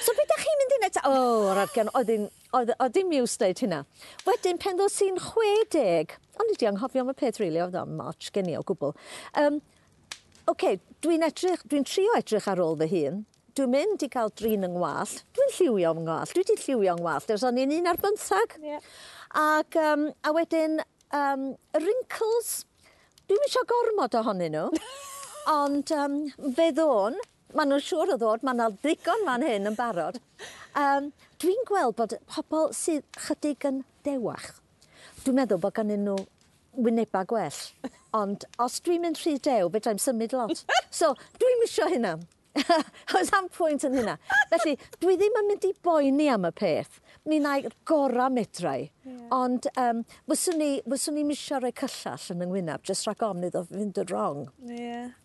So beth ydych chi'n mynd i wneud?" O, oh, argan, oedd dim iws deud hynna. Wedyn, pen ddos i'n 60, o'n i 'di anghofio am y peth, really, oedd o'n moch gen i o gwbl. Okay, dwi'n trio edrych ar ôl fy hun. Dwi'n mynd i gael drin yng ngwallt. Dwi'n lliwio yng ngwallt. Dwi wedi lliwio yng ngwallt ers o'n i'n 11. Ac, a wedyn, wrinkles, dwi'm eisiau gormod ohonyn nhw. Ond fe ddôn, maen nhw'n siŵr o ddod, mae yna ddigon fan hyn yn barod. Dwi'n gweld bod pobl sydd chydig yn dewach, dwi'n meddwl bod ganddyn nhw wynebau gwell. Ond os dwi'n mynd rhy dew, fedrai'm symud lot. So, dwi'm isio hynna. Oes am pwynt yn hynna. Felly, dwi ddim yn mynd i boeni am y peth. Mi wna i'r gorau medrai. Ond fyswn i'n isio rhoi cyllall yn yng ngwyneb, jyst rhag ofn iddo fynd yn wrong.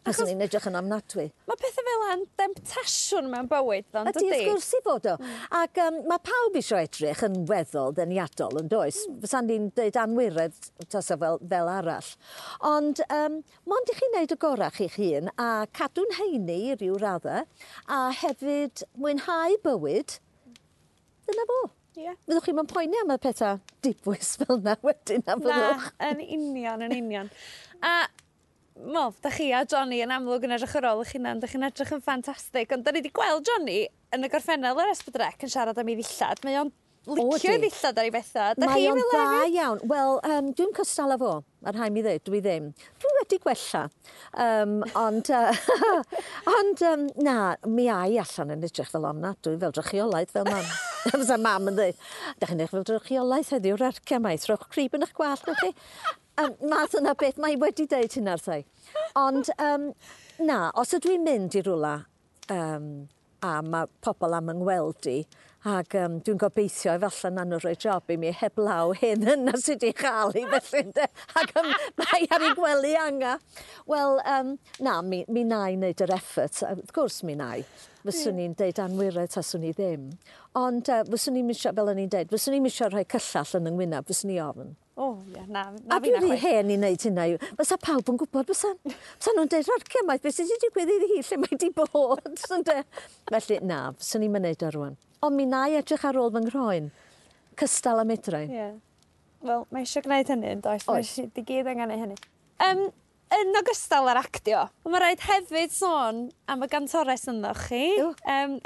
Fyswn i'n edrych yn ofnadwy. Mae pethau fel yna'n demtasiwn mewn bywyd, ddo'n Ydy, wrth gwrs i fod o. Ac mae pawb eisiau edrych yn weddol deniadol, yn does? Fysa'n ni'n dweud anwiredd tasa fel arall. Ond mond i chi wneud y gorau chi'ch hun a cadw'n heini i ryw raddau a hefyd mwynhau bywyd, dyna fo. Fyddwch chi'n poeni am y pethau dibwys fel yna wedyn, na Na, fyddwch? yn union, yn union. A, mo, da chi a Johnny yn amlwg yn edrych ar ôl eich hunan, da chi'n edrych yn ffantastig, ond da ni wedi gweld Johnny yn y gorffennol ar S4C yn siarad am ei ddillad. Mae o'n licio ei ydi. ddillad ar ei bethau. Da Mae chi o'n fel dda hefyd? iawn. Wel, dwi'n cystal â fo, mae rhaid mi ddweud, dwi ddim. Dwi wedi gwella. Ond, na, mi ai allan yn edrych fel ofnadwy, fel drychiolaeth, fel mam. Fysa mam yn dweud, "Da chi'n edrych fel drychiolaeth heddiw'r arcia mai, trowch crib yn eich gwallt, newch chi." Math yna beth, mae wedi deud hynna wrtha i. Ond, na, os ydw i'n mynd i rwla a mae pobl am yng ngweld i, ac dwi'n gobeithio efallai na nhw rhoi job i mi heblaw hyn yna sydd wedi chael i felly, ynde? Ac mae ar ei gwely anga. Wel, na, mi na i wneud yr effort. Wrth gwrs mi na i. Fyswn i'n deud anwiredd taswn i ddim. Ond fyswn i'n misio, fel o'n i'n deud, fyswn i'n misio rhoi cyllall yn yng ngwyneb, fyswn i ofn. O, ie, na, na A fi dwi'n na rhy chwaith. hen i wneud hynna. Fysa pawb yn gwybod, fysa. Fysa nhw'n deud, "Rarcia maith, beth sydd wedi digwydd iddi hi, lle mae wedi bod?" Ynde? Felly, na, fyswn i'n mynd o rwan. Ond mi na i edrych ar ôl fy nghroen, cystal â medrai. Wel, mae eisiau gwneud hynny, yn does? Oes. Mae eisiau gyd angen neud hynny. Yn ogystal â'r actio, mae rhaid hefyd sôn am y gantores ynddo chi. Yw.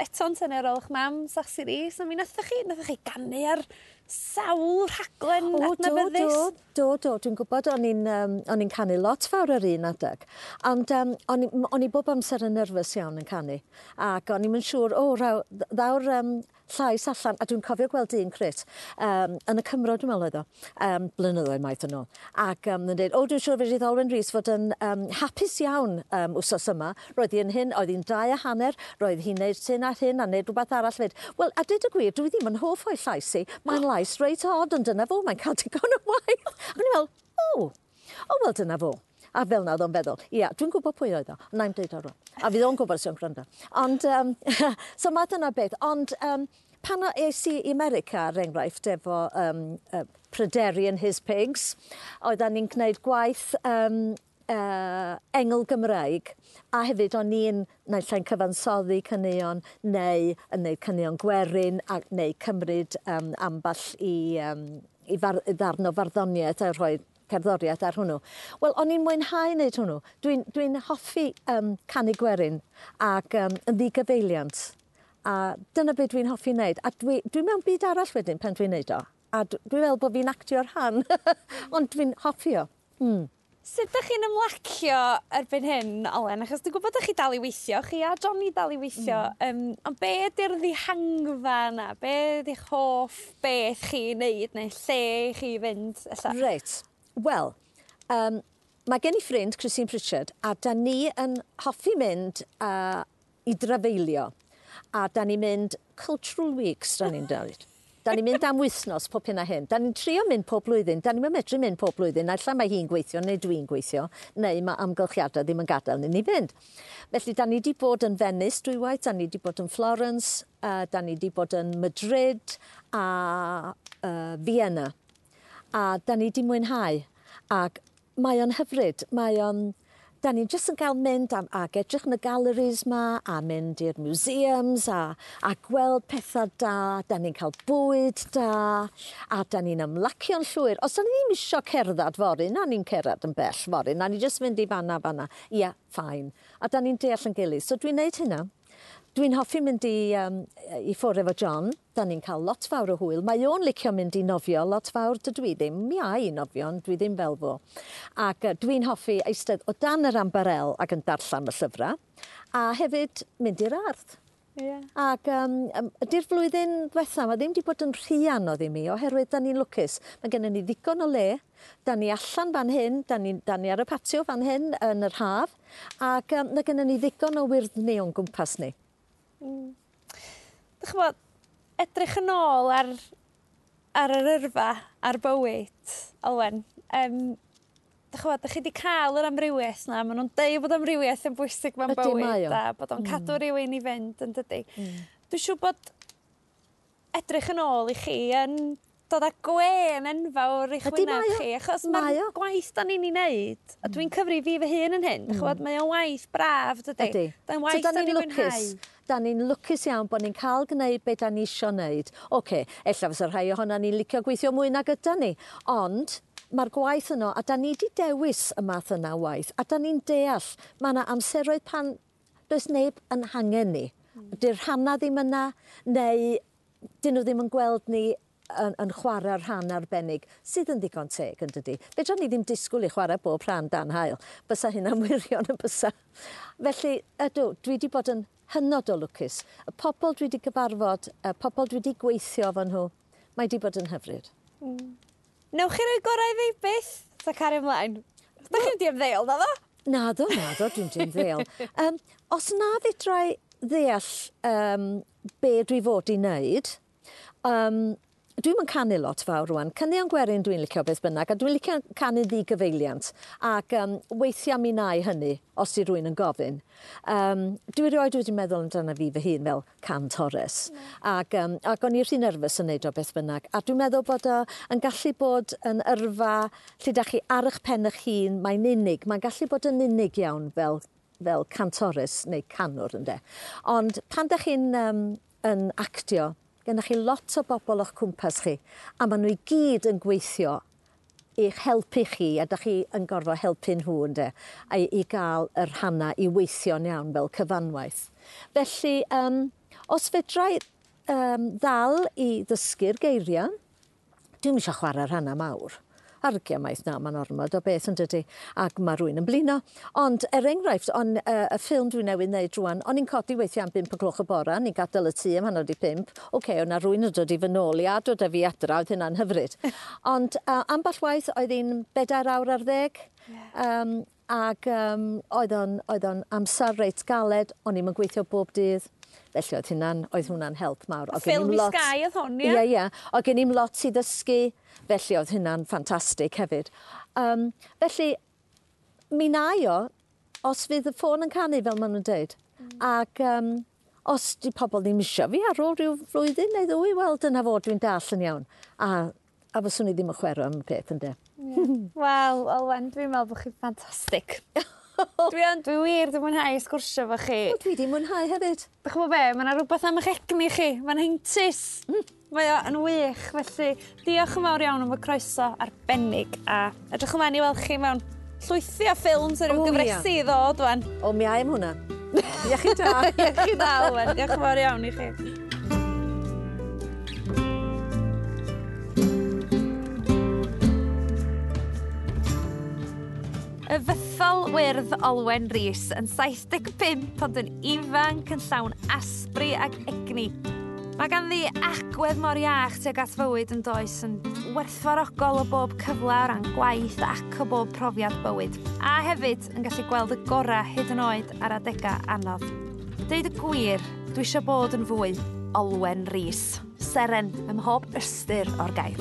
Eto'n tynnu ar ôl eich mam, Sasi Rees, a mi nathoch chi ganu ar sawl rhaglen O, do, adnabyddus. do, dwi'n gwybod o'n i'n canu lot fawr ar un adeg, ond o'n i bob amser yn nerfus iawn yn canu, ac o'n i'm yn siŵr, o, ddaw'r llais allan, a dwi'n cofio gweld un crit, yn y Cymro, dwi'n meddwl oedd o, blynyddoedd maith yn ôl, ac yn dweud, o, dwi'n siŵr fedrith Olwen Rees fod yn hapus iawn wsos yma, roedd hi'n hyn, oedd hi'n 2.5, roedd hi'n neud hyn a hyn, a neud rhywbeth arall fyd. Wel, a dweud y gwir, dwi ddim yn hoff o'i llais i, mae'n lais reit od, ond dyna fo, mae'n cael digon o waith. Ac o'n i'n meddwl, o, wel, dyna fo. A fel na oedd o'n feddwl, ia, dwi'n gwybod pwy oedd o, ond na'i'm deud o rŵan. A fydd o'n gwybod os yw'n gwrando. Ond, so mae dyna beth, ond pan es i i America, er enghraifft, efo Pryderi and His Pigs, oeddan ni'n gwneud gwaith engl Gymraeg, a hefyd o'n i'n naill ai'n cyfansoddi caneuon neu yn neud caneuon gwerin, a, neu cymryd ambell i ddarn o farddoniaeth a rhoi cerddoriaeth ar hwnnw. Wel, o'n i'n mwynhau wneud hwnnw. Dwi'n hoffi canu gwerin ac yn ddigyfeiliant. A dyna beth dwi'n hoffi wneud. A dwi mewn byd arall wedyn pan dwi'n wneud o. A dwi'n meddwl bod fi'n actio'r rhan, ond dwi'n hoffi o. Sut ydych chi'n ymlacio erbyn hyn, Olwen? Achos dwi'n gwybod ydych chi dal i weithio, chi a Johnny dal i weithio. Ond be ydy'r ddihangfa yna? Be ydy'ch hoff beth chi wneud neu lle chi fynd? Ella? Reit. Wel, mae gen i ffrind, Christine Pritchard, a da ni yn hoffi mynd i drafeilio. A da ni'n mynd Cultural Weeks, da ni'n dweud. Da ni'n mynd am wythnos pob hyn a hyn. Da ni'n trio mynd pob blwyddyn. Da ni'n medru mynd pob blwyddyn. Naill ai mae hi'n gweithio neu dwi'n gweithio, neu mae amgylchiadau ddim yn gadael ni fynd. Felly, da ni wedi bod yn Venice dwywaith, da ni wedi bod yn Florence, da ni wedi bod yn Madrid a Vienna. A da ni wedi mwynhau. Ac mae o'n hyfryd. Mae o'n... Da ni'n jyst yn cael mynd ac edrych yn y galleries ma, a mynd i'r museums, a gweld pethau da, da ni'n cael bwyd da, a da ni'n ymlacio'n llwyr. Os da ni ddim isio cerdded fory, na ni'n cerdded yn bell fory, na ni jyst mynd i fanna, fanna. Ia, fine. A da ni'n deall yn gilydd. So dwi'n neud hynna. Dwi'n hoffi mynd i ffwrdd efo John. Da ni'n cael lot fawr o hwyl. Mae o'n licio mynd i nofio lot fawr. Dydw i ddim. Mi a i nofio, ond dwi ddim fel fo. Ac dwi'n hoffi eistedd o dan yr ambarel ac yn darllen y llyfrau. A hefyd mynd i'r ardd. Ac ydy'r flwyddyn diwetha, mae ddim wedi bod yn rhy anodd i mi, oherwydd da ni'n lwcus. Mae gennym ni ddigon o le, da ni allan fan hyn, da ni ar y patio fan hyn yn yr haf, ac mae gennym ni ddigon o wyrddni o'n gwmpas ni. Dych ch'mod, edrych yn ôl ar yr yrfa, ar bywyd, Olwen, dych ch'mod, dych chi wedi cael yr amrywiaeth 'na, maen nhw'n deud bod amrywiaeth yn bwysig mewn bywyd, a bod o'n cadw rhywun i fynd, yn dydi. Dwi'n siŵr bod edrych yn ôl i chi yn dod â gwên enfawr i'ch wyneb chi, achos mae'r gwaith da ni'n ei wneud, a dwi'n cyfri fi fy hun yn hyn, dych ch'mod, mae o'n waith braf, dydi? Ydy. Mae'n waith da ni'n mwynhau. Da ni'n lwcus iawn bod ni'n cael gwneud be da ni isio wneud. Oce, ella fysa rhai ohonan ni'n licio gweithio mwy nag yda ni, ond mae'r gwaith yno, a da ni wedi dewis y math yna o waith, a da ni'n deall, mae yna amseroedd pan does neb yn hangen ni. Dy'r rhannau ddim yna, neu dyn nhw ddim yn gweld ni yn chwarae rhan arbennig, sydd yn ddigon teg, yn dydi. Fedra ni ddim disgwyl i chwarae bob rhan dan haul. Bysa hynna'n wirion yn bysa. Felly, ydw, dwi wedi bod yn hynod o lwcus. Y pobl dwi wedi gyfarfod, y pobl dwi wedi gweithio efo nhw, mae wedi bod yn hyfryd. Newch chi roi gorau i fi byth? Ta cario ymlaen? Da chi'n mynd i ymddeol, naddo? Naddo, dwi'n mynd i ymddeol. Os na fedra i ddeall be dwi fod i wneud, Dwi'm yn canu lot fawr rŵan. Caneuon gwerin dwi'n licio beth bynnag, a dwi'n licio canu ddigyfeiliant. Ac weithiau mi wna i hynny, os di rywun yn gofyn. Dwi erioed wedi meddwl amdano fi fy hun fel cantores. Ac o'n i rhy nerfus yn neud o beth bynnag. A dwi'n meddwl bod o yn gallu bod yn yrfa lle da chi ar eich pen eich hun, mae'n unig. Mae'n gallu bod yn unig iawn fel cantores neu canwr, ynde. Ond pan da chi'n yn actio, Gennych chi lot o bobl o'ch cwmpas chi, a maen nhw i gyd yn gweithio i'ch helpu chi, a da chi yn gorfod helpu nhw, ynde, a i gael y rhannau i weithio'n iawn fel cyfanwaith. Felly, os fedra i ddal i ddysgu'r geiriau, dwi'm eisiau chwarae rhannau mawr. Argia maith na, mae'n ormod o beth yn dydi, ac mae rhywun yn blino. Ond er enghraifft, y ffilm dwi newydd wneud rwan, o'n i'n codi weithiau am 5 o gloch y bora, ni'n gadael y tŷ am 5:30. Oce, o'na rhywun yn dod i fy nôl i a dod â fi adra, oedd hynna'n hyfryd. Ond ambell waith oedd hi'n 4 awr ar 10. Ac oedd o'n amser reit galed, o'n i'm yn gweithio bob dydd. Felly oedd hwnna'n help mawr. Ffilm i Sky oedd hwn, ie? Ie, ie. Oedd gen i'm lot i ddysgu, felly oedd hynna'n ffantastig hefyd. Felly, mi na i o, os fydd y ffôn yn canu, fel maen nhw'n dweud. Ac os di pobl ddim isio fi ar ôl rhyw flwyddyn neu ddwy, wel, dyna fo, dwi'n dall yn iawn. A fyswn i ddim yn chwarae am y peth, ynde. Wel, Olwen, dwi'n meddwl bod chi'n ffantastig. Dwi wir, dwi'n mwynhau sgwrsio efo chi. O, dwi 'di mwynhau hefyd. Dych chi'n gwybod be, mae yna rhywbeth am eich egni chi, mae'n heintus. Mae o yn wych, felly diolch yn fawr iawn am y croeso arbennig a edrych ymlaen i weld chi mewn llwythi o ffilms a ryw gyfresi i ddod wan. O, mi ai am hwnna. Iechyd da. Iechyd da, Olwen. Diolch yn fawr iawn i chi. Y fythol wyrdd Olwen Rees yn 75 ond yn ifanc yn llawn asbri ac egni. Mae ganddi agwedd mor iach tuag at fywyd yn does, yn werthfawrogol o bob cyfle o ran gwaith ac o bob profiad bywyd. A hefyd yn gallu gweld y gorau hyd yn oed ar adegau anodd. Deud y gwir, dwi eisiau bod yn fwy Olwen Rees, seren ym mhob ystyr o'r gair.